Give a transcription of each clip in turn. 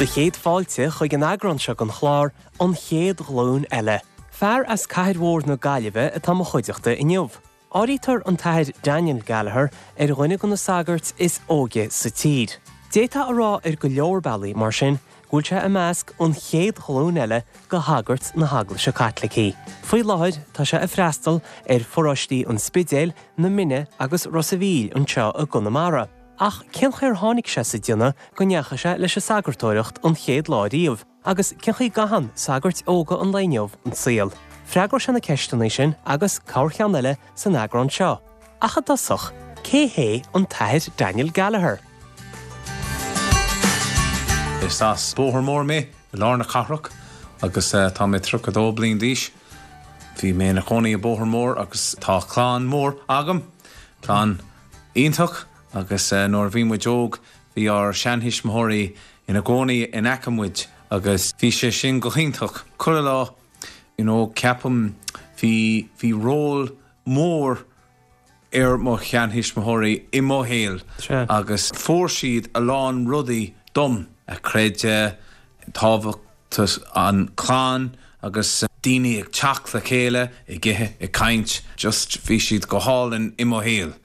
Do chéad fáilte chuig an eagrán seo den chlár, An Chéad Ghlúin Eile. Fear as cathair mhór na Gaillimhe atá mo chuideachta inniu. Áirítear an tAthair Daniel Gallagher ar dhuine de na sagairt is óige sa tír. D'fhéadfá a rá ar go leor bealaí, mar sin, go bhfuil sé i measc an chéad ghlúin eile de shagairt na hEaglaise Caitlicí. Faoi láthair tá sé ag freastal ar pharóistí an Spidéil, na Minne agus Ros a' Mhíl anseo i gConamara. Ach cén chaoi ar tháinig sé sa déanamh go ndeachaigh sé leis an sagartóireacht an chéad lá riamh? Agus cén chaoi a gcaitheann sagairt óga an lae inniu an saol? Freagróidh sé na ceisteanna sin agus corrcheann eile san eagrán seo. Ach i dtosach, cé hé an tAthair Daniel Gallagher? Is as Bóthar Mór mé, i lár na cathrach, agus tá mé 32 bliain d'aois. Bhí mé ina chónaí i Bóthar Mór agus tá clann mór agam, clann iontach, agus nuair a bhí muid óg bhí ár seanthuismitheoirí ina gcónaí in aice muid agus bhí sé sin go hiontach. Chuile lá, you know, ceapaim bhí, bhí ról mór ar mo sheanthuismitheoirí i mo shaol agus fuair siad a lán rudaí dom, a creideamh, tábhacht an clann agus daoine ag teacht le chéile, ag ithe, ag caint, just bhí siad go hálainn i mo shaol.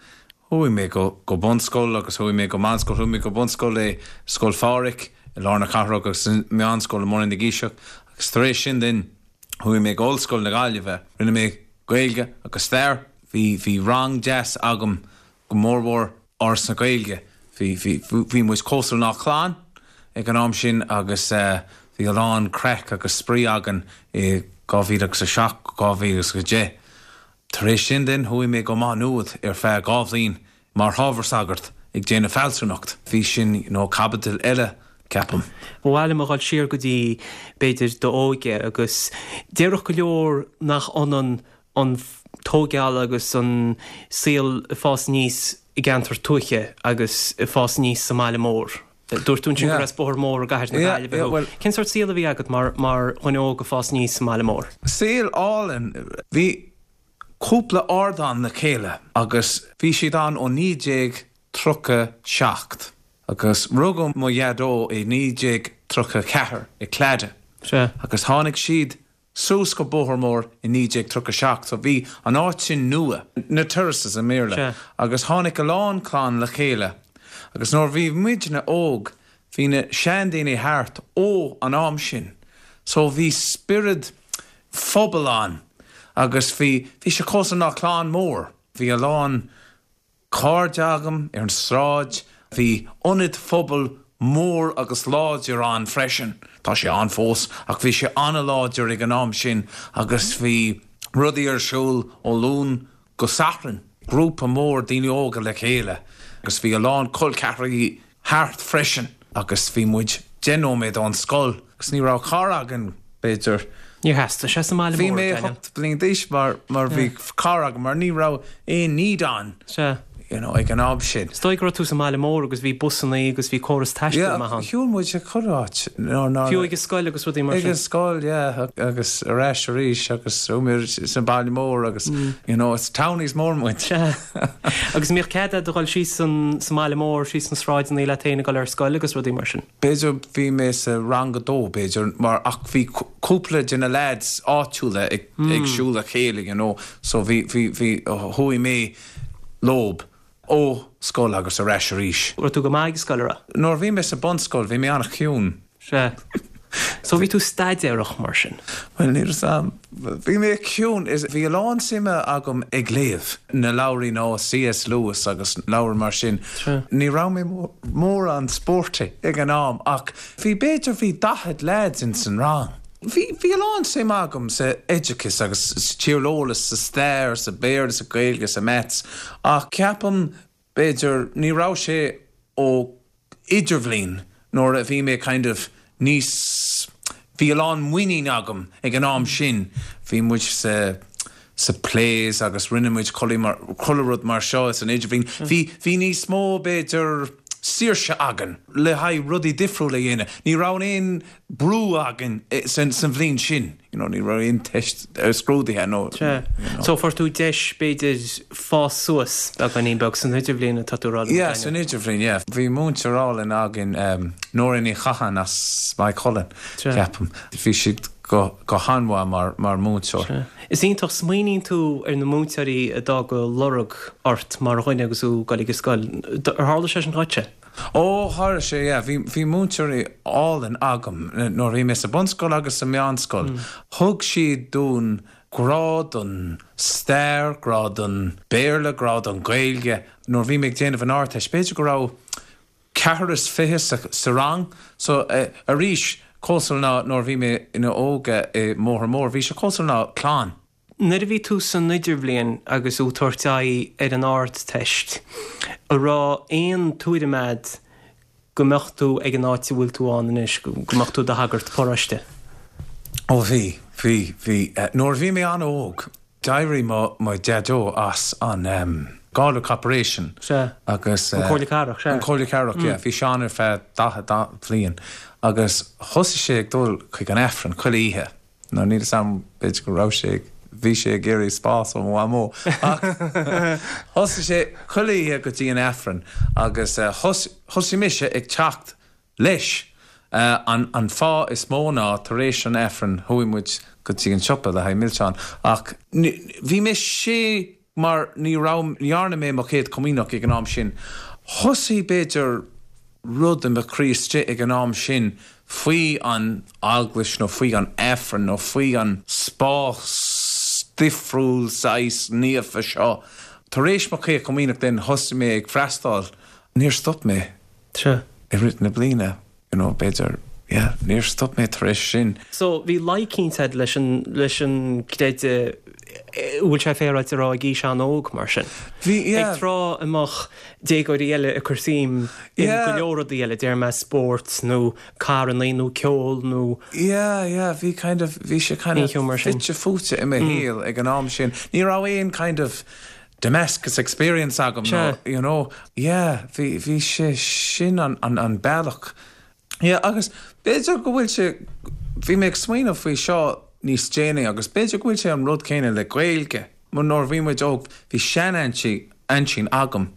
Chuaigh mé go go bunscoil agus chuaigh mé go meánscoil, chuaigh mé go bunscoil i Scoil Phádraig i lár na cathrach agus meánscoil i mBun na gCiseach agus tar éis sin then chuaigh mé go Ollscoil na Gaillimhe. Rinne mé Gaeilge agus Stair. Bhí bhí rang deas agam go mórmhór Áras na Gaeilge. Bhí bhí bhí muid cosúil ná clann ag an am sin agus bhí a lán craic agus spraoi againn i 2007 go 2010. Tar éis sin then chuaigh mé go Maigh Nuad ar feadh 2 bhliain mar hábhar sagart ag déanamh fealsúnacht. Bhí sin you know caibidil eile ceapaim. Ba mhaith liom a dhul siar go dtí b'fhéidir d'óige agus déarfadh go leor nach ionann an tóigeáil agus an saol ag fás aníos i gceantar tuaithe agus ag fás aníos sa mbaile mór. Dúirt tú ansin gur as Bóthar Mór i gcathair na Gaillimhe thú. Cén sórt saol a bhí agat mar mar dhuine óg ag fás aníos sa mbaile mór? Saol álainn. Bhí cúpla ardán le chéile agus bhí siad ann ó 1937 agus rugadh mo dhaideo i 1934 i Claddagh agus tháinig siad suas go Bóthar Mór i 1937 so bhí an áit sin nua, na terraces i mBéarla, agus tháinig a lán clann le chéile agus nuair bhí muidne óg bhí na seandaoine thart ó an am sin so bhí spiorad phobail ann agus bhí, bhí sé cosúil ná clann mór, bhí a lán cairde agam ar an sráid. Bhí ionad phobail mór agus láidir ann freisin. Tá sé ann fós ach bhí sé an-láidir ag an am sin agus bhí rudaí ar siúl ó Luan go Satharn. Grúpa mór daoine óga le chéile agus bhí a lán col ceathracha thart freisin agus bhí muid 10 nóiméad ón scoil agus ní raibh carr againn, b'fhéidir. Níor theastaigh sé sa mbaile mór, Bhí mé 8 bliain d'aois mar mar bhí carr agam mar ní raibh aon need ann Sea. you know ag an am sin. Is dóigh go raibh tú sa mbaile mór agus bhí busannaí agus bhí córas taistil maith ann. Yeah, shiúil muid chuile áit. Fiú ag an scoil agus rudaí mar sin. Ag an scoil, yeah, agus ar ais arís agus chuaigh muid sa baile mór agus you know it's townies mór muid. Sea. Agus an mbíodh cead agat a dhul síos sa mbaile mór, síos na sráideanna leat féin ag dul ar scoil agus rudaí mar sin? B'fhéidir bhí mé sa rang a dó, b'fhéidir, mar ach bhí cúpla de na lads áitiúla ag ag siúl le chéile, you know, so bhí, bhí, bhí, chuaigh mé leob ó scoil agus ar ais arís. Raibh tú go maith ag scoil, a raibh? Nuair a bhí mé sa bunscoil bhí mé an-chiúin. Sea. So bhí tú staidéarach mar sin? Bhuel, níl 'fhios a'm. Bhí mé ciúin. Is bhí a lán suime agam ag léamh na leabhraí ná C.S. Lewis agus leabhair mar sin. Sea. Ní raibh mé mórán sporty ag an am ach bhí b'fhéidir bhí 40 lads ins an rang. Bhí bhí a lán suime agam sa oideachas agus sa tíreolas, sa stair, sa Bhéarla, sa Ghaeilge, sa Maths ach ceapaim b'fhéidir ní raibh sé ó idirbhliain nuair a bhí mé kind of níos, bhí a lán muinín agam ag an am sin, bhí muid sa sa plays agus rinne muid chuile mar, chuile rud mar seo san idirbhliain, bhí, bhí níos mó b'fhéidir. saoirse againn le haghaidh rudaí difriúla a dhéanamh. Ní raibh aon brú againn san bhliain sin, you know, ní raibh aon teist scrúdaithe nó, you know. So fuair tú deis b'fhéidir fás suas beagáinín beag san idirbhliain atá tú a rá liom, Yeah, san idirbhliain, yeah. Bhí múinteoir álainn againn, Nóra Ní Chatháin as Maigh Cuilinn, ceapaim. Bhí sí go go han-mhaith mar mar mhúinteoir. Sea. Is iontach, smaoiníonn tú ar na múinteoirí a d'fhág lorg ort mar dhuine agus tú ag dul ag an scoil. Ar tharla sé sin dhuitse? Ó, tharla sé, yeah. Bhí bhí múinteoirí álainn agam nuair a bhí mé sa bunscoil agus sa meánscoil. Thug siad dúinn grá don stair, grá don Béarla, grá don Ghaeilge. Nuair a bhí mé ag déanamh an Ardteist, b'fhéidir go raibh ceathrar is fiche sa rang. So, arís, cosúil ná nuair a bhí mé ina óige i mBóthar Mór, bhí sé cosúil ná clann. Nuair a bhí tú san idirbhliain agus tú ag tabhairt aghaidh ar an Ardteist, an raibh aon tuairim a'd go mbeadh tú ag an áit a bhfuil tú ann anois, go mbeadh tú i do shagart paróiste? Ó bhí, bhí, bhí. Nuair a bhí mé an-óg, D'éirigh mo mo Dhaideo as an Galway Corporation Sea. agus. An Comhairle Cathrach, sea. An Comhairle Cathrach, yeah. Bhí sé ann ar feadh 40 bliain agus thosaigh sé ag dul chuig an Aifreann chuile oíche. Now níl 'fhios a'm, b'fhéidir go raibh sé ag, bhí sé ag iarraidh spás ó mo mhamó ach thosaigh sé chuile oíche go dtí an Aifreann agus thosaigh mise ag teacht leis. An fáth is mó ná tar éis an Aifrinn chuaigh muid go dtí an siopa le haghaidh milseáin ach bhí mé sé mar ní raibh, ní dhearna mé mo chéad chomaoineach ag an am sin. Thosaigh b'fhéidir rud i mo chroí istigh ag an am sin faoi an eaglais nó faoi an Aifreann nó faoi an spás difriúil saghas naofa seo. Tar éis mo chéad chomaoineach then thosaigh mé ag freastáil. Níor stop mé. Sea. I rith na bliana, you know, b'fhéidir, yeah, níor stop mé tar éis sin. So, bhí luí eicínt a'd leis an, leis an gcreideamh, an bhfuil sé féaráilte a rá ag aois an-óg mar sin? Bhí, yeah. Ag tráth a mbeadh déagóirí eile ag cur suim in go leor rudaí eile, déarfaidh mé spórt nó carrannaí nó ceol nó. Yeah, yeah, bhí kind of, bhí sé kind of fite fuaite i mo shaol ag an am sin. Ní raibh aon kind of Damascus experience agam nó you know yeah bhí bhí sé sin an an an bealach yeah agus b'fhéidir go bhfuil sé bhí mé ag smaoineamh faoi seo níos déanaí agus b'fhéidir go bhfuil sé an rud céanna le Gaeilge mar nuair a bhí muid óg bhí sean-aintín aintín agam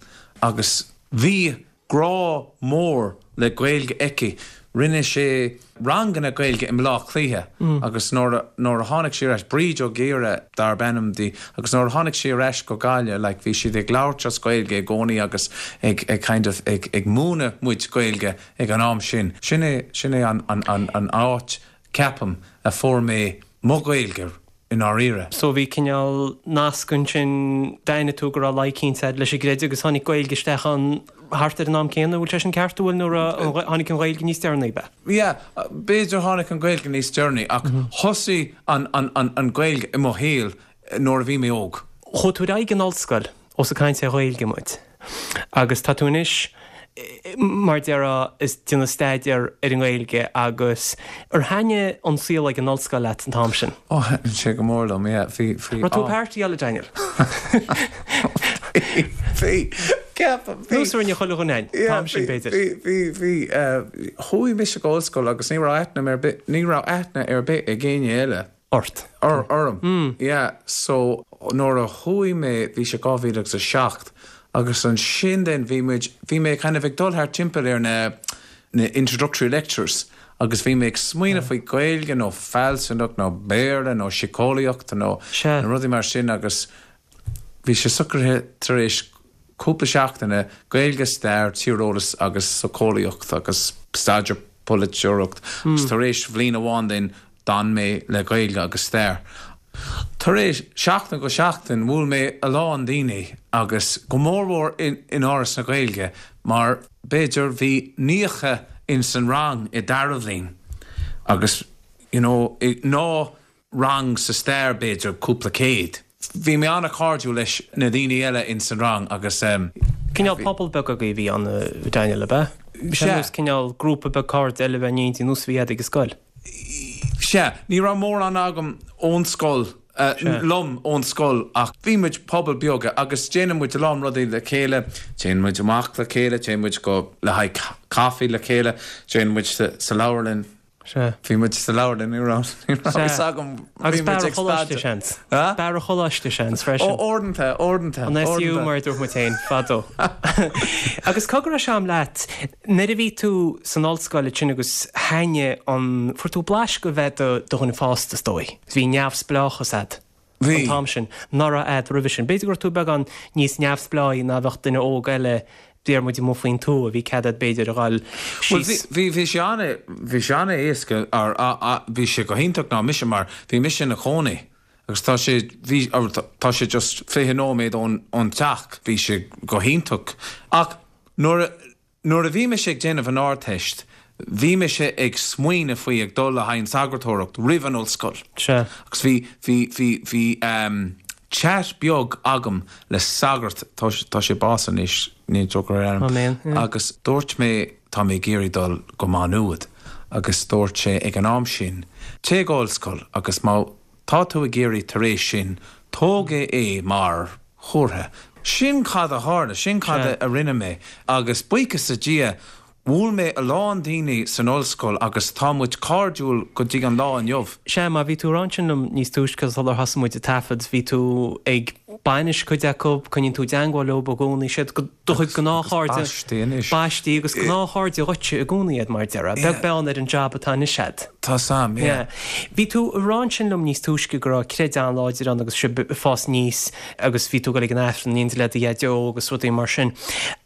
agus bhí grá mór le Gaeilge aici. Rinne sé ranganna Gaeilge i mBleá Cliath agus nuair a nuair a tháinig sí ar ais, Bríd Ó Gaora darb ainm di, agus nuair a tháinig sí ar ais go Gaillimh like bhí siad ag labhairt as Gaeilge i gcónaí agus ag ag kind of ag ag múineadh muid Gaeilge ag an am sin. Sin é sin é an an an an áit ceapaim a fuair mé mo Ghaeilge i ndáiríre. So bhí cineál nasc ansin, d'aithnigh tú go raibh luí eicínt a'd leis an gcreideamh agus tháinig Gaeilge isteach ann thart ar an am céanna, bhfuil sé sin ceart, an bhfuil, nó raibh, tháinig an Ghaeilge níos deireanaí, ab ea? Yeah, b'fhéidir tháinig an Ghaeilge níos deireanaí ach thosaigh an, an, an, an Ghaeilge i mo shaol nuair a bhí mé óg. Chuaigh tú ar aghaidh an ollscoil ós ag caint ar Ghaeilge muid agus tá tú anois, mar déarfá, ag déanamh staidéar ar an nGaeilge agus ar thaitnigh an saol ag an ollscoil leat an t-am sin? Ó, thaitnigh sé go mór liom, yeah. Bhí, bhí. Raibh tú ag partyáil, a Daniel? Bhí, bhí, ceapaim, bhí. Nós a rinne chuile dhuine an t-am sin, b'fhéidir. Bhí, bhí, bhí. Chuaigh mise go ollscoil agus ní raibh aithne ar bith, ní raibh aithne ar bith ag éinne eile. Ort. Orm. Yeah. So, nuair a chuaigh mé, bhí sé 2007, agus ansin then bhí muid, bhí mé kind of ag dul thart timpeall ar na, na introductory lectures agus bhí mé ag smaoineamh faoi Gaeilge nó fealsúnacht nó Béarla nó síceolaíocht nó na rudaí mar sin agus bhí sé socraithe tar éis cúpla seachtaine, Gaeilge, Stair, Tíreolas agus Socheolaíocht agus Staidéar Polaiteoireacht agus tar éis bhliain amháin then D'fhan mé le Gaeilge agus Stair. Tar éis seachtain go seachtain bhuail mé a lán daoine agus go mórmhór in Áras na Gaeilge mar b'fhéidir bhí 90 ins an rang i dara bhliain agus you know ná rang sa stair b'fhéidir cúpla céad. Bhí mé an-chairdiúil leis na daoine eile ins an rang agus. Cineál pobal beag agaibh a bhí ann a Daniel, ab ea? Sea. Nós cineál grúpa beag cairde eile a bheith in éindí nós a bhí agat ag an scoil. Sea, ní raibh mórán agam ón scoil. liom ón scoil ach bhí muid pobal beag agus déanann muid a lán rudaí le chéile, téann muid amach le chéile, téann muid go le haghaidh caife le chéile, téann muid sa leabharlann. Sea. Bhí muid sa leabharlann, ní raibh, ní raibh fhios agam. Agus beár an choláiste, seans. Beár an choláiste, seans, freisin. Ó, uaireanta, uaireanta. An SU, mar a dúirt muid féin, fadó. Agus cogar a Seán leat, nuair a bhí tú san ollscoil ansin agus thaitnigh an, fuair tú blaiseadh de bheith i do dhuine fásta, is dóigh. Bhí neamhspleáchas a'd. Bhí. An t-am sin. Nach raibh a'd roimhe sin. B'fhéidir go raibh tú beagán níos neamhspleáí ná bheadh duine óg eile, déarfaidh muid amuigh faoin tuath, bhí cead a'd b'fhéidir a dhul Bhuel síos. bhí, bhí sé ana, bhí sé ana éasca, or, bhí sé go hiontach ná mise mar bhí mise ina chónaí agus tá sé, bhí, or tá sé just 20 nóiméad ón, ón teach, bhí sé go hiontach. Ach nuair a, Nuair a bhí mise ag déanamh an Ardteist, bhí mise ag smaoineamh faoi ag dul le haghaidh an sagartóireacht roimh an ollscoil. Sea. Agus bhí, bhí, bhí, bhí ehm chat beag agam le sagart, tá, tá sé básaithe anois, níl tionchar ar ainm, Amen, yeah. agus dúirt mé tá mé ag iarraidh dul go Má Nuad agus dúirt sé ag an am sin, téigh go ollscoil agus má tá tú ag iarraidh tar éis sin, tóg é mar chomhartha. Sin cad a tharla, sin cad a rinne mé agus buíochas le Dia, bhuail mé a lán daoine san ollscoil agus tá muid cairdiúil go dtí an lá inniu. Sea, mar bhí tú ag rá ansin liom níos túisce sular thosaigh muid ag taifead, bhí tú ag bainis cuid acu, coinníonn tú i dteangmháil leo i gcónaí, siad do chuid gnáthchairde. Agus baistí anois. Baistí agus gnáthchairde dhuitse i gcónaí iad mar a déarfá, beag beann ar an jab atá anois a'd. Tá 's a'm, yeah. Bhí tú ag rá ansin liom níos túisce go raibh creideamh an-láidir ann agus sibh ag fás aníos agus bhí tú ag dul ag an Aifreann in éindí le do dhaideo agus rudaí mar sin.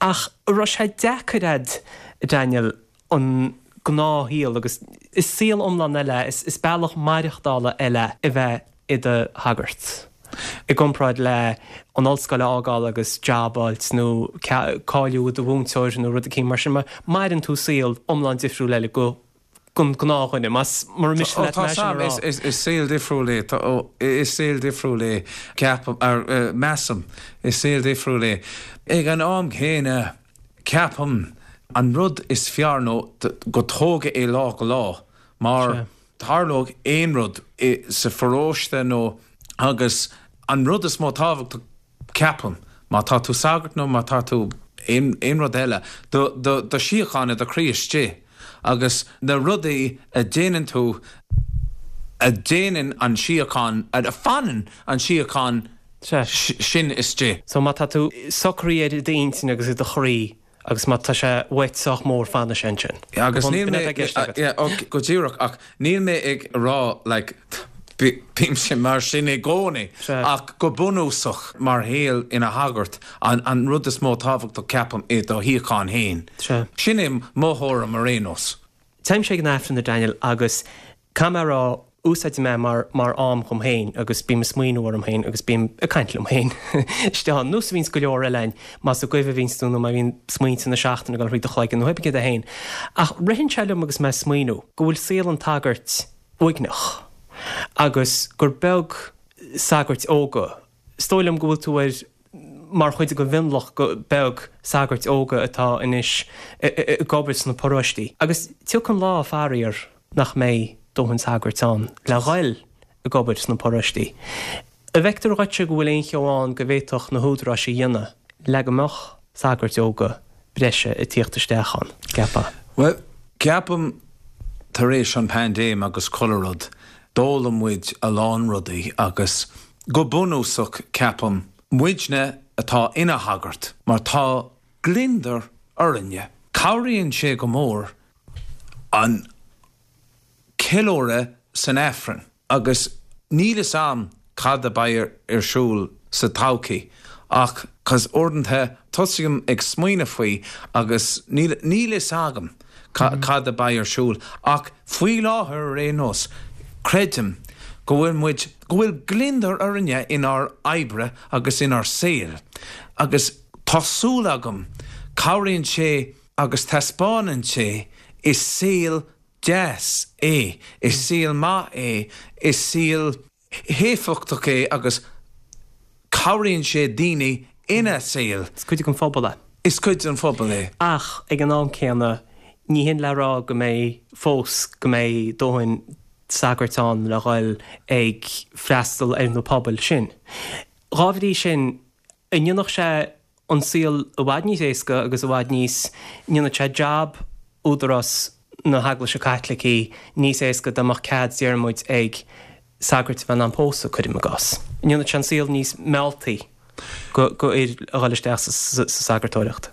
Ach an raibh sé deacair a'd, Daniel, an gnáthshaol agus is saol iomlán eile é, is bealach maireachtála eile é a bheith i do shagart i gcomparáid le an ollscoil a fhágáil agus jab a fháilt nó cáiliú i do mhúinteoir nó rud eicínt mar sin. Maireann tú saol iomlán difriúil eile go don gnáthdhuine, más mura miste leat é sin a rá. Is saol difriúil é, is saol difriúil é, ceapaim, measaim, is saol difriúil é. Ag an am céanna, ceapaim, an rud is fearr nó go tógadh é lá go lá, mar tharlódh aon rud sa pharóiste nó agus an rud is mó tábhachtach, Ceapaim, má tá tú sagart nó má tá tú aon rud eile, do shíocháin i do chroí istigh agus na rudaí a déanann tú, a déanann an síocháin, a fanann an síocháin sin istigh. So má tá tú socraithe ar d'intinn agus i do chroí, Agus má tá sé uait sách mór fanfaidh sé ansin. Agus níl mé, yeah, ok, go díreach, ach níl mé ag rá like bímse mar sin i gcónaí, ach go bunúsach mar shaol ina shagart, an rud is mó tábhachtach ceapaim é do shíocháin féin. Sin é mo thuairim ar aon nós. Téimse ag an Aifreann a Daniel agus caithfidh mé a rá, úsáidim é mar mar am dhom féin agus bím ag smaoineamh orm féin agus bím ag caint liom féin istigh ann, nós a bhíonns go leor eile againn, más ag goimh a bhíonns tú nó má bhíonn smaointe na seachtaine ag dul thríd do chloigeann nó pé céard é féin. Ach ritheann sé liom agus mé ag smaoineamh go bhfuil saol an tsagairt uaigneach agus gur beag sagairt óga, Is dóigh liom go bhfuil tú ar mar chuid den mhionlach beag sagairt óga atá anois ag obair sna paróistí. Agus tiocfaidh an lá, faraor, nach mbeidh dóthain sagairt ann le ghoil ag obair sna paróistí. An bhfeictear dhuitse go bhfuil aon cheo ann go bhféadfadh na húdaráis a dhéanamh le go mbeadh sagairt óga breise ag tíocht isteach ann, ceapfá? Bhuel, ceapaim tar éis an paindéim agus chuile rud, d'fhoghlaim muid a lán rudaí agus Go bunúsach, ceapaim, muidne atá ina shagart, mar tá gliondar orainne. Cabhraíonn sé go mór an ceiliúradh san Aifreann agus níl fhios a'm cad a beidh ar siúl sa todhchaí ach 'cause uaireanta tosaím ag smaoineamh faoi agus níl níl fhios agam cad a beidh ar siúl ach faoi láthair ar aon nós creidim go bhfuil muid, go bhfuil gliondar orainne inár oibre agus inár saol agus tá súil agam cabhraíonn sé agus taispeánann sé is saol deas é, is saol maith é, is saol. héifeachtach é agus cabhraíonn sé daoine ina saol. Is cuid den phobal é. Is cuid den phobal é. Ach ag an am céanna, ní hin le rá go mbeidh fós, go mbeidh dóthain. sagairt ann le dhul ag freastal ar na pobail sin. Dhá bhrí sin, an ndéanfadh sé an saol i bhfad níos éasca agus i bhfad níos, ndéanfadh sé jab údarás na hEaglaise Caitlicí níos éasca dá mbeadh cead, déarfaidh muid, ag sagairt a bheith in ann pósadh, cuirim i gcás. An ndéanfadh sé an saol níos mealltaí go fhir a dhul isteach sa sagartóireacht?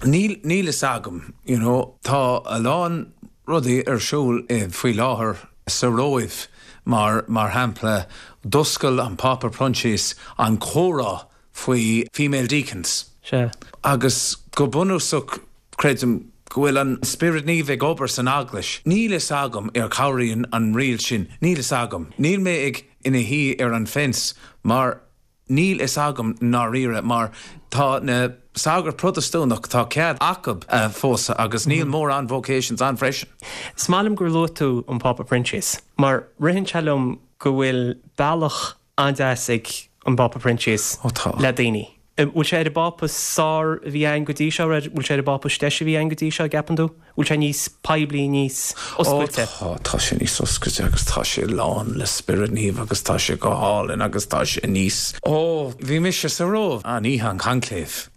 Níl, níl fhios agam, you know. Tá a lán rudaí ar siúl faoi láthair sa Róimh, mar, mar shampla, d'oscail an Pápa Proinsias an comhrá faoi female deacons. Sea. Agus go bunúsach, creidim go bhfuil an Spiorad Naomh ag obair san Eaglais. Níl fhios agam ar cabhraíonn an riail sin. Níl fhios agam. Níl mé ag ina shuí ar an fence mar níl fhios agam ndáiríre mar tá na sagairt Protastúnach, tá cead acu pósadh agus níl mórán vocations ann freisin. Is maith liom gur luaigh tú an Pápa Proinsias mar ritheann sé liom go bhfuil bealach an-deas ag an bPápa Proinsias le daoine. Bhfuil sé ar an bPápa is fearr a bhí againn go dtí seo? Bhfuil sé ar an bPápa is deise a bhí againn go dtí seo, an gceapann tú? Bhfuil sé níos poiblí, níos oscailte? Ó tá, tá sé níos oscailte agus tá sé lán le Spiorad Naomh agus tá sé go hálainn agus tá sé níos, ó bhí mise sa Róimh an oíche an conclave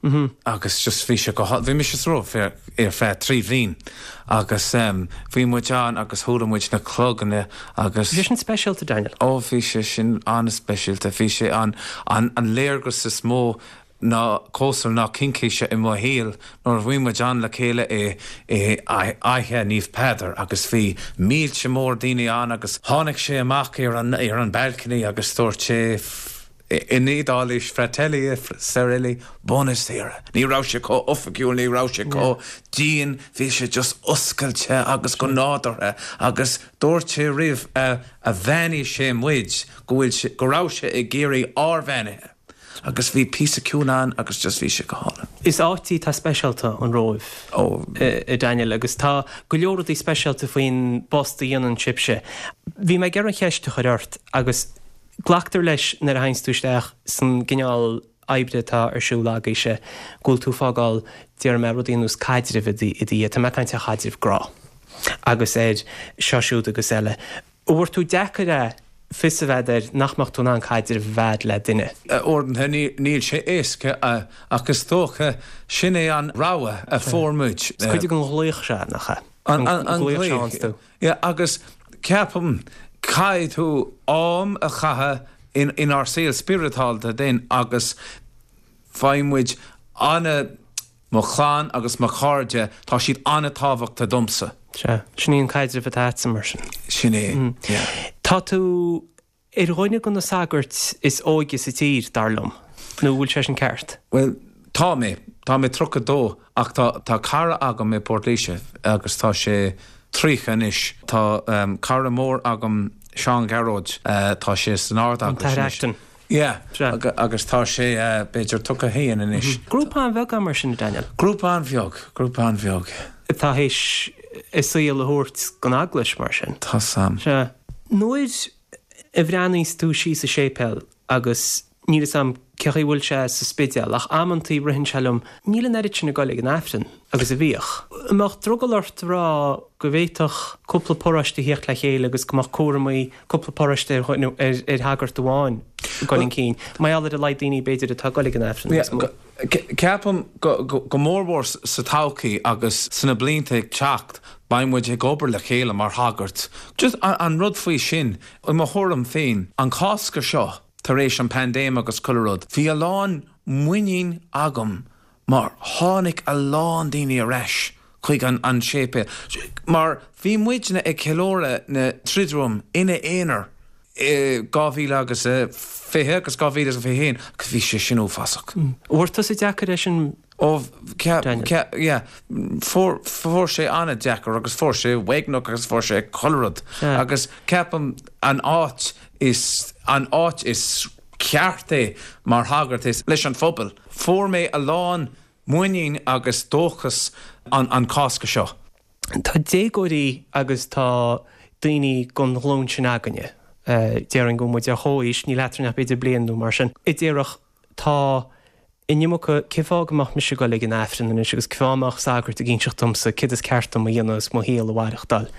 agus just bhí sé go hálainn, bhí mise sa Róimh ar feadh 3 bhliain agus bhí muid ann agus chuala muid na cloganna agus. Bhí sé sin speisialta, Daniel. Ó, bhí sé sin an-speisialta. Bhí sé an, an, an léargas is mó ná cosúil ná cincíse i mo shaol nuair a bhí muid ann le chéile i, i Fhaiche Naomh Peadar agus bhí mílte mór daoine ann agus tháinig sé amach ar an, ar an balcony agus dúirt sé, In Iodáilis, Fratelli e sorelle, buonasera. Ní raibh sé chomh oifigiúil, ní raibh sé chomh dian, bhí sé just oscailte agus go nádúrtha agus dúirt sé roimh a bheannaigh sé muid go bhfuil sé, go raibh sé ag iarraidh ár bheannaithe agus bhí píosa ciúin ann agus just bhí sé go hálainn. Is áit í atá speisialta, an Róimh, a Daniel, agus tá go leor rudaí speisialta faoin bpost a dhéanann sibhse. Bhí mé ag iarraidh an cheist a chur ort agus Glactar leis nuair a théanns tú isteach san gcineál oibre atá ar siúl agaibhse go bhfuil tú ag fágáil, déarfaidh mé, rudaí ar nós caidrimh i do dhiaidh. Tá mé ag caint ar chaidrimh grá agus ar seo siúd agus eile. An bhfuair tú deacair é fios a bheith air nach mbeadh tú in ann caidreamh a bheith le duine? Uaireanta níl sé éasca ach is dócha sin é an rogha a fuair muid. Is cuid den ghlaoch seo, nach ea? An glaoch. Yeah, agus ceapaim caithfidh tú am a chaitheamh in inár saol spioradálta then agus faigheann muid ana, mo chlann agus mo chairde, tá siad an-tábhachtach domsa. Sea, sin í an caidreamh atá agatsa mar sin. Sin é, yeah. Tá tú ar dhuine de na sagairt is óige sa tír, dar liom. Nó an bhfuil sé sin ceart? Bhuel, tá mé. Tá mé 32 ach tá, tá cara agam i bPort Laoise agus tá sé 30 anois. Tá cara mór agam, Seán Gearóid, tá sé san Ard-Eaglais anois. An tAthair Acton. Yeah, agus tá sé b'fhéidir 31 anois. Grúpa an-bheag é mar sin, a Daniel. Grúpa an-bheag, grúpa an-bheag. Atá théis a saol a thabhairt don Eaglais mar sin. Tá sam. Sea. Nuair a bhreathnaíos tú síos sa séipéal agus níl 'fhios a'm cé chaoi bhfuil sé sa Spidéal ach amantaí ritheann sé liom, níl an oiread sin ag goil ag an Aifreann agus a bhíodh. An mbeadh drogall ort a rá go bhféadfadh cúpla paróiste a thíocht le chéile agus go mbeadh cúramaí cúpla paróiste ar ar shagart amháin ag goil chun cinn, mar gheall ar a laghad daoine b'fhéidir atá ag goil ag an Aifreann níos mó? Ceapaim go mórmhór sa todhchaí agus sna blianta ag teacht beidh muid ag obair le chéile mar shagairt. Just an rud faoi sin, i mo thuairim féin, an Cásca seo tar éis an paindéim agus chuile rud, bhí a lán muinín agam mar tháinig a lán daoine ar ais chuig an séipéal mar bhí muidne ag ceiliúradh na Triduum ina aonar i 2020 agus 2021 agus bhí sé sin uafásach. An bhfuair tusa deacair é sin Ó, yeah, fuair, fuair sé an-deacair agus fuair sé uaigneach agus fuair sé chuile rud agus ceapaim an áit is, an áit is ceart é mar shagart is leis an phobal. Fuair mé a lán muinín agus dóchas an Cásca seo. Tá déagóirí agus tá daoine den ghlúin sin againne, déarfainn go bhfuil muid ar chomhaois, níl eadrainn ach b'fhéidir bliain nó mar sin, a déarfadh tá. An iomarca, cén fáth go mbeadh mise ag dul ag an Aifreann anois agus cén fáth a mbeadh sagart ag inseacht domsa céard is ceart dom a dhéanamh is mo shaol a mhaireachtáil?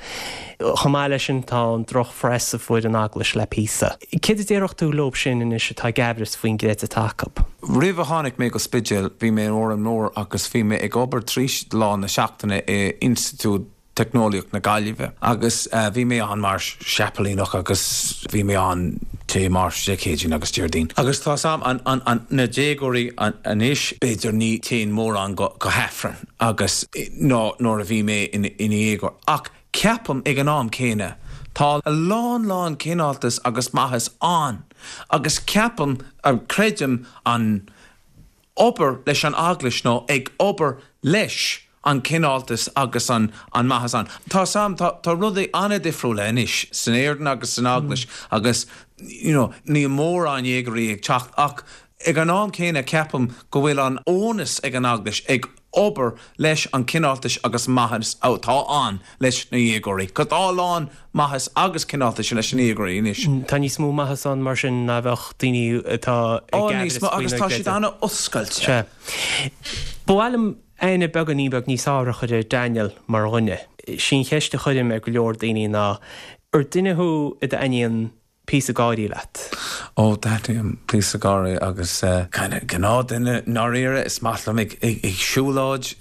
Chomh maith leis sin tá an droch-phress a fuair an Eaglais le píosa. Céard a déarfadh tú leob sin anois atá ag aimhreas faoin gcreideamh atá acu? Roimh a tháinig mé go Spidéal bhí mé in Órán Mór agus bhí mé ag obair 3 lá na seachtaine i Institiúid Teicneolaíocht na Gaillimhe agus bhí mé ann mar seapailíneach agus bhí mé ann Dé Máirt, Dé Céadaoin agus Déardaoin. Agus tá 's a'm, an, an, an, na déagóirí anois, b'fhéidir ní téann mórán go, go hAifreann agus ná nuair a bhí mé ina, ina dhéagóir. Ach ceapaim ag an am céanna tá a lán, lán cineáltas agus maitheas ann agus ceapaim, creidim an, obair leis an Eaglais nó ag obair leis an cineáltas agus an an maitheas ann. Tá 's a'm, tá tá rudaí an-difriúla anois san Éirinn agus san Eaglais agus you know níl mórán dhéagóirí ag teacht ach ag an am céanna ceapaim go bhfuil an onus ag an Eaglais ag obair leis an cineáltais agus maitheas atá ann leis na dhéagóirí. Cos tá a lán maitheas agus cineáltais leis na dhéagóirí anois. Tá níos mó maitheas ann mar sin ná bheadh daoine atá ag aimhreas faoina gcreideamh. Agus tá siad an-oscailte. Sea. Ba mhaith liom aithne beagáinín beag níos fearr a chur ar Daniel mar dhuine. Sí an cheist a chuirim ar go leor daoine ná, ar duine thú a dtaitníonn píosa gáirí leat? Ó, taitníonn píosa gáirí agus kind of gnáthduine i ndáiríre, is maith liom ag siúlóid,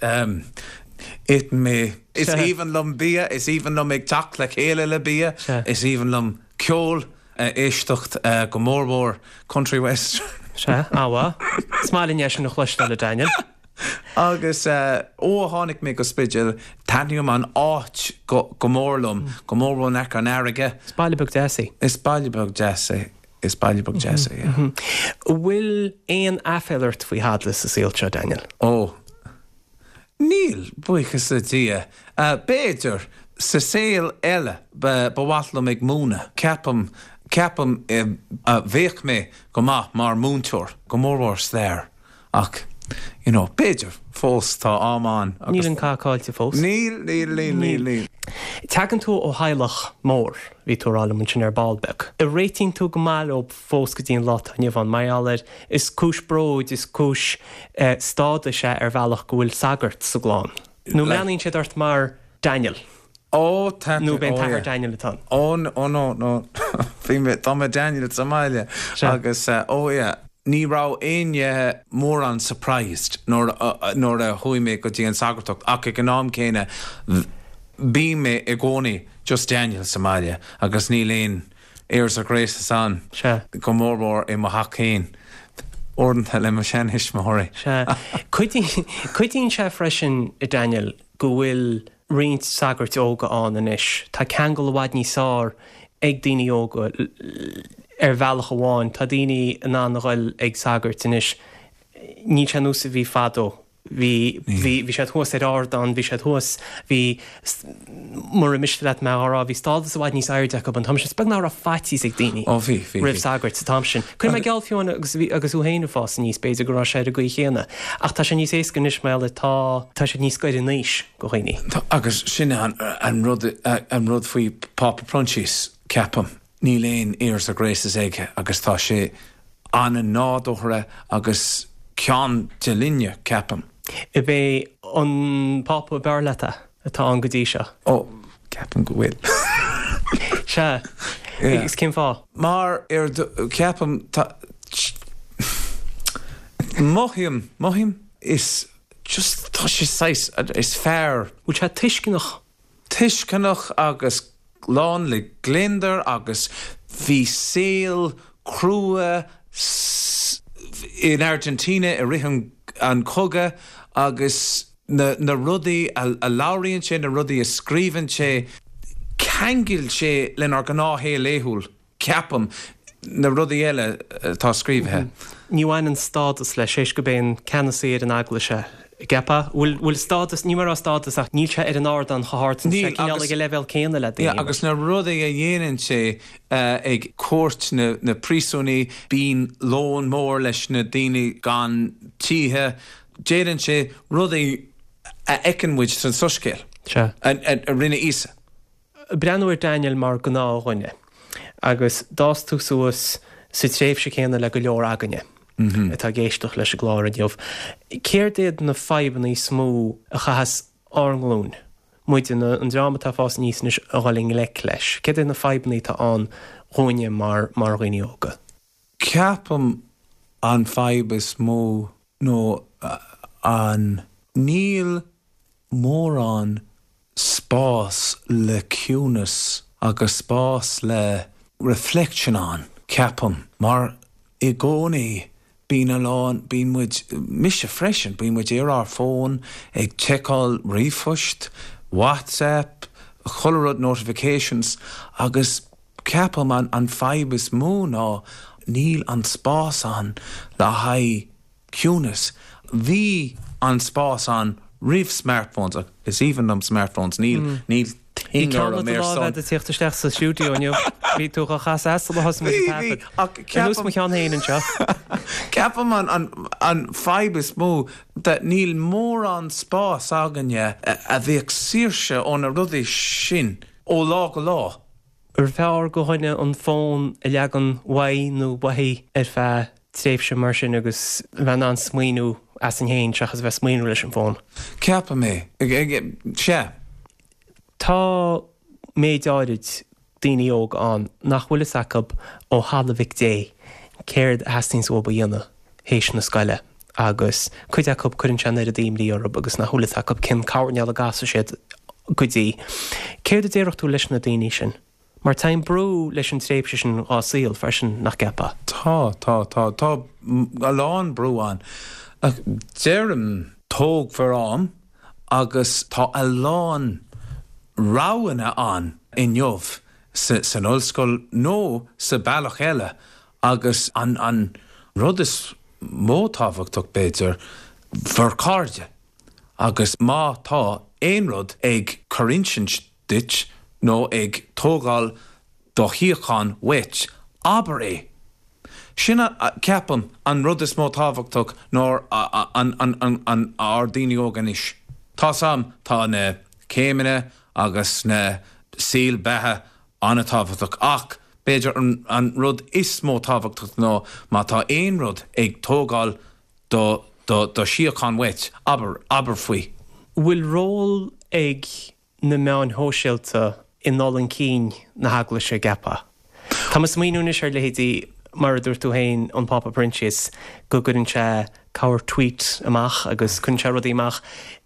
itheann mé, is aoibhinn liom bia, is aoibhinn liom ag teacht le chéile le bia, is aoibhinn liom ceol a éisteacht, go mór mhór country western. Sea, an-mhaith. Is maith linn é sin a chloisteáil, a Daniel. Agus ó a tháinig mé go Spidéal, taitníonn an áit go mór liom, go mór mhór in aice an fharraige. Is baile beag deas é. Is baile beag deas é. Is baile beag deas é, yeah. An bhfuil aon aiféala ort faoi thada sa saol seo, Daniel? Ó, níl, buíochas le Dia. B'fhéidir, sa saol eile, ba mhaith liom ag múineadh. Ceapaim, ceapaim, bheadh mé go maith mar múinteoir, go mór mhór stair. Ach, you know, b'fhéidir, fós, tá am ann agus. Níl an cath caillte fós. Níl, níl, níl, níl, níl. Tagann tú ó theaghlach mór, bhí tú a rá liom ansin ar ball beag. An réitíonn tú go maith leo fós go dtí an lá atá inniu ann, mar gheall ar, is cúis bróid, is cúis stádais é ar bhealach go bhfuil sagart sa gclann. Nó mbreathnaíonn siad ort mar Daniel? Ó, tá, Nó b'é an t-athair Daniel atá ann? Ó, ó no, no, bhí mé, tá mé Daniel sa mbaile agus, ó yeah. Ní raibh éinne mórán surprised nuair, nuair a chuaigh mé go dtí an sagartacht ach ag an am céanna bím mé i gcónaí just Daniel sa mbaile agus níl aon airs or graces ann, go mór mhór i mo theach féin, uaireanta le mo sheantuismitheoirí. Sea. Cuidíonn, cuidíonn sé freisin, a Daniel, go bhfuil roinnt sagairt óga ann anois. Tá ceangal i bhfad níos fearr ag daoine óga ar bhealach amháin. Tá daoine in ann a ghoil ag sagairt anois. Níl sé ar nós a bhí fadó. Bhí, bhí, bhí siad thuas ar ardán, bhí siad thuas, bhí, mura miste leat mé á rá, bhí stádas i bhfad níos airde acu an t-am sin. Is beag nach raibh faitíos ag daoine Ó bhí, bhí, roimh sagairt sa t-am sin. Cuir mé geall fiú amháin agus bhí, agus thú féin ag fás aníos, b'fhéidir go raibh sé ar an gcaoi chéanna. Ach tá sé níos éasca anois mar gheall ar tá, tá siad níos gaire in aois go dhaoine. Tá, agus sin an, an rud, an rud faoi Pápa Proinsias, ceapaim. Níl aon airs or graces aige agus tá sé an-nádúrtha agus ceann de linne, ceapaim. Ab é an Pápa ab fhearr leat é atá ann go dtí seo? Ó, ceapaim go bhfuil. Sea. Agus cén fáth? Mar, ar, ceapaim, tá, mothaím, mothaím, is just, tá sé saghas, is fear. Bhfuil sé tuisceanach? Tuisceanach agus lán le gliondar agus bhí saol crua in Argentina i rith an chogadh agus na na rudaí a labhraíonn sé, na rudaí a scríobhann sé, ceangail sé lenár gnáthshaol laethúil. ceapaim, na rudaí eile atá scríobhtha. Ní bhaineann stádas leis, théis gurb é an ceannasaí ar an eaglais é, an gceapfá? Bhfuil, bhfuil stádas, ní mar a stádas ach níl sé ar an ardán chomh hard, níl sé cineál ag an leibhéal céanna le daoine. Yeah, agus na rudaí a dhéanann sé ag cuairt na, na príosúnaí, bíonn lón mór leis na daoine gan tithe, déanann sé rudaí a fheiceann muid san Soiscéal, a rinne Íosa. Breathnú ar Daniel mar gnáthdhuine agus d'fhás tú suas sa tréimhse céanna le go leor againne. atá ag éisteacht leis an gclár inniu, céard iad na fadhbanna is mó a chaitheas ár nglúin, muide, an dream atá ag fás aníos anois, a dhul i ngleic leis? Céard iad na fadhbanna atá ann dhúinne mar mar dhaoine óga? Ceapaim an fadhb is mó nó an níl mórán spás le ciúnas agus spás le reflection ann, ceapaim, mar i gcónaí bíonn a lán, bíonn muid, mise freisin, bíonn muid ar ár bhfón ag tseiceáil ríomhphoist, WhatsApp, chuile rud, notifications agus ceapaim an an fadhb is mó ná níl an spás ann le haghaidh ciúnas. Bhí an spás ann roimh smartphones ach is aoibhinn liom smartphones, níl, níl Bhí thing ceann orm i do ar láimh son. agat ag tíocht isteach sa stiúideo inniu. Bhí tú dhá chasadh as sular thosaigh muid Bhí, ag bhí, taifead. ach Ar nós ceapaim, mo cheann féin anseo. ceapaim an, an, an fadhb is mó that níl mórán spás againne a bheadh saoirse ó na rudaí sin ó lá go lá. Arbh fhearr go dhuine an fón a leagan uaidh nó uaithi ar feadh tréimhse mar sin agus a bheith in ann smaoineamh asainn féin seachas a bheith ag smaoineamh leis an bhfón? Ceapaim é. Sea. Tá méid áirid daoine óga ann nach bhfuil fhios acu ó thalamh Mhic Dé céard a theastaíonns uathu a dhéanamh théis na scoile agus cuid acu cuireann sé an oiread imní orthu agus nach bhfuil fhios acu cén coirnéal a gcasfaidh siad go dtí. Céard a déarfadh tú leis na daoine sin? Mar tagann brú leis an tréimhse sin dhá saol freisin, nach gceapfá? Tá, tá, tá. Tá a lán brú ann. Ach deirim, tóg bhur am agus tá a lán roghanna ann inniu san ollscoil nó sa bealach eile Agus an rud is mó tábhachtach, b'fhéidir, bhur cairde. Agus má tá aon rud ag cur insint duit nó ag tógáil do shíocháin uait, abair é. Sin, ceapaim, an rud is mó tábhachtach ná an ár daoine óga anois. Tá's a'm, tá na céimeanna agus na saol beatha an-tábhachtach ach b'fhéidir an rud is mó tábhachtach ná má tá aon rud ag tógáil do do do shíocháin uait, abair, abair faoi. Bhfuil ról ag na meáin shóisialta i ndul chun cinn na hEaglaise, an gceapfá? Tá mé ag smaoineamh anois ar leithéidí, mar a dúirt tú féin, an Pápa Proinsias, go gcuireann sé corr-tweet amach agus cuireann sé rudaí amach.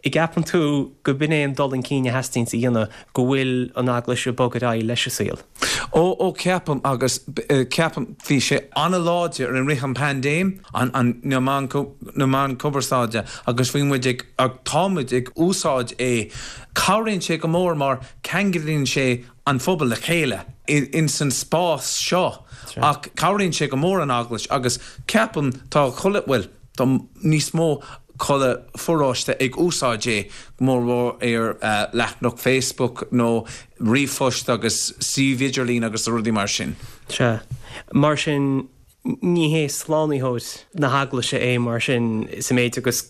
An gceapann tú go b'in é an dul chun cinn a theastaíonns a dhéanamh, go bhfuil an Eaglais ag bogadh ar aghaidh leis an saol? Ó, ó ceapaim agus ceapaim bhí sé an-láidir i rith an paindéim, an, an, na meáin, na meáin cumarsáide agus bhí muid ag, tá muid ag úsáid é. Cabhraíonn sé go mór mar ceanglaíonn sé an phobal le chéile ins an spás seo ach cabhraíonn sé go mór an Eaglais agus ceapaim tá chuile, bhuel tá níos mó chuile pharóiste ag úsáid é, go mór mhór ar leathanach Facebook nó ríomhphost agus suíomh idirlín agus rudaí mar sin. Sea. Mar sin Ní hé slánaitheoir na hEaglaise é mar sin sa méid agus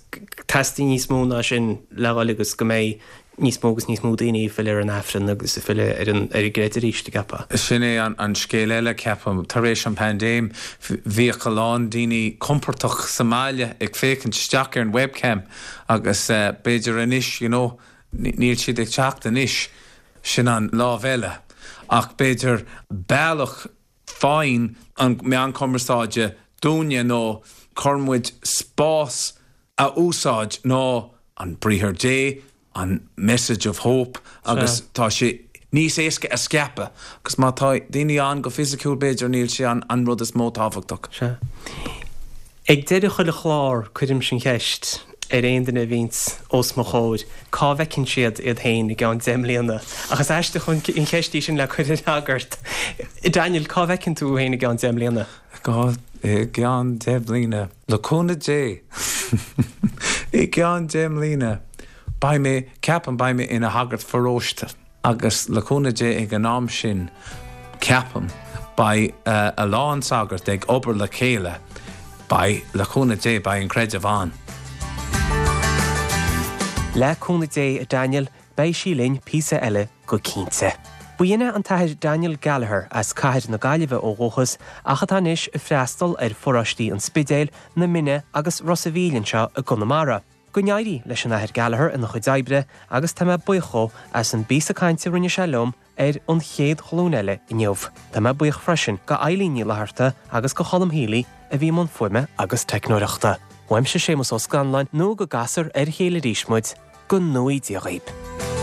teastaíonn níos mó ná sin le dhul agus go mbeidh níos mó agus níos mó daoine ag filleadh ar an Aifreann agus ag filleadh ar an ar an gcreideamh arís, an gceapfá? Sin é an scéal eile, ceapaim. Tar éis an paindéim, bhíodh a lán daoine compordach sa mbaile ag féachaint isteach ar an webcam agus b'fhéidir anois, you know, níl siad ag teacht anois. Sin an lámh eile. Ach b'fhéidir bealach Faigheann an meán cumarsáide dúinne nó cuireann muid spás a úsáid ná an Briathar Dé, an message of hope agus tá sé níos éasca a scaipeadh agus má tá daoine ann go fisiciúil b'fhéidir níl sé an rud is mó tábhachtach. Sea. Ag deireadh chuile chlár cuirimse an cheist ar aon duine a bhíonns os mo chomhair cá bhfeiceann siad iad féin i gceann 10 mbliana. Ach is aisteach an cheist í sin le cur ar shagart. Daniel, cá bhfeiceann tú féin i gceann 10 mbliana? I gceann 10 mbliana, le cúnamh Dé, i gceann 10 mbliana, beidh mé, ceapaim, beidh mé ina shagart pharóiste. Agus le cúnamh Dé ag an am sin, ceapaim, beidh a lán sagart ag obair le chéile, beidh, le cúnamh Dé, beidh an creideamh ann. Le cúnamh Dé, a Daniel, beidh sí linn píosa eile go cinnte. B'in é an tAthair Daniel Gallagher as cathair na Gaillimhe ó dhúchas ach atá anois ag freastal ar pharóistí an Spidéil, na Minne agus Ros a' Mhíl anseo i gConamara. Go n-éirí leis an Athair Gallagher ina chuid oibre agus tá mé buíoch dhó as an bpíosa cainte a rinne sé liom ar An Chéad Ghlúin Eile inniu. Tá mé buíoch freisin go Eileen Ní Fhlatharta agus go Cholm Healy a bhí i mbun fuaime agus teicneoireachta. Uaimse Séamus Ó Scanláin nó go gcasfar ar a chéile arís muid, go ngnóthaí Dia dhaoib.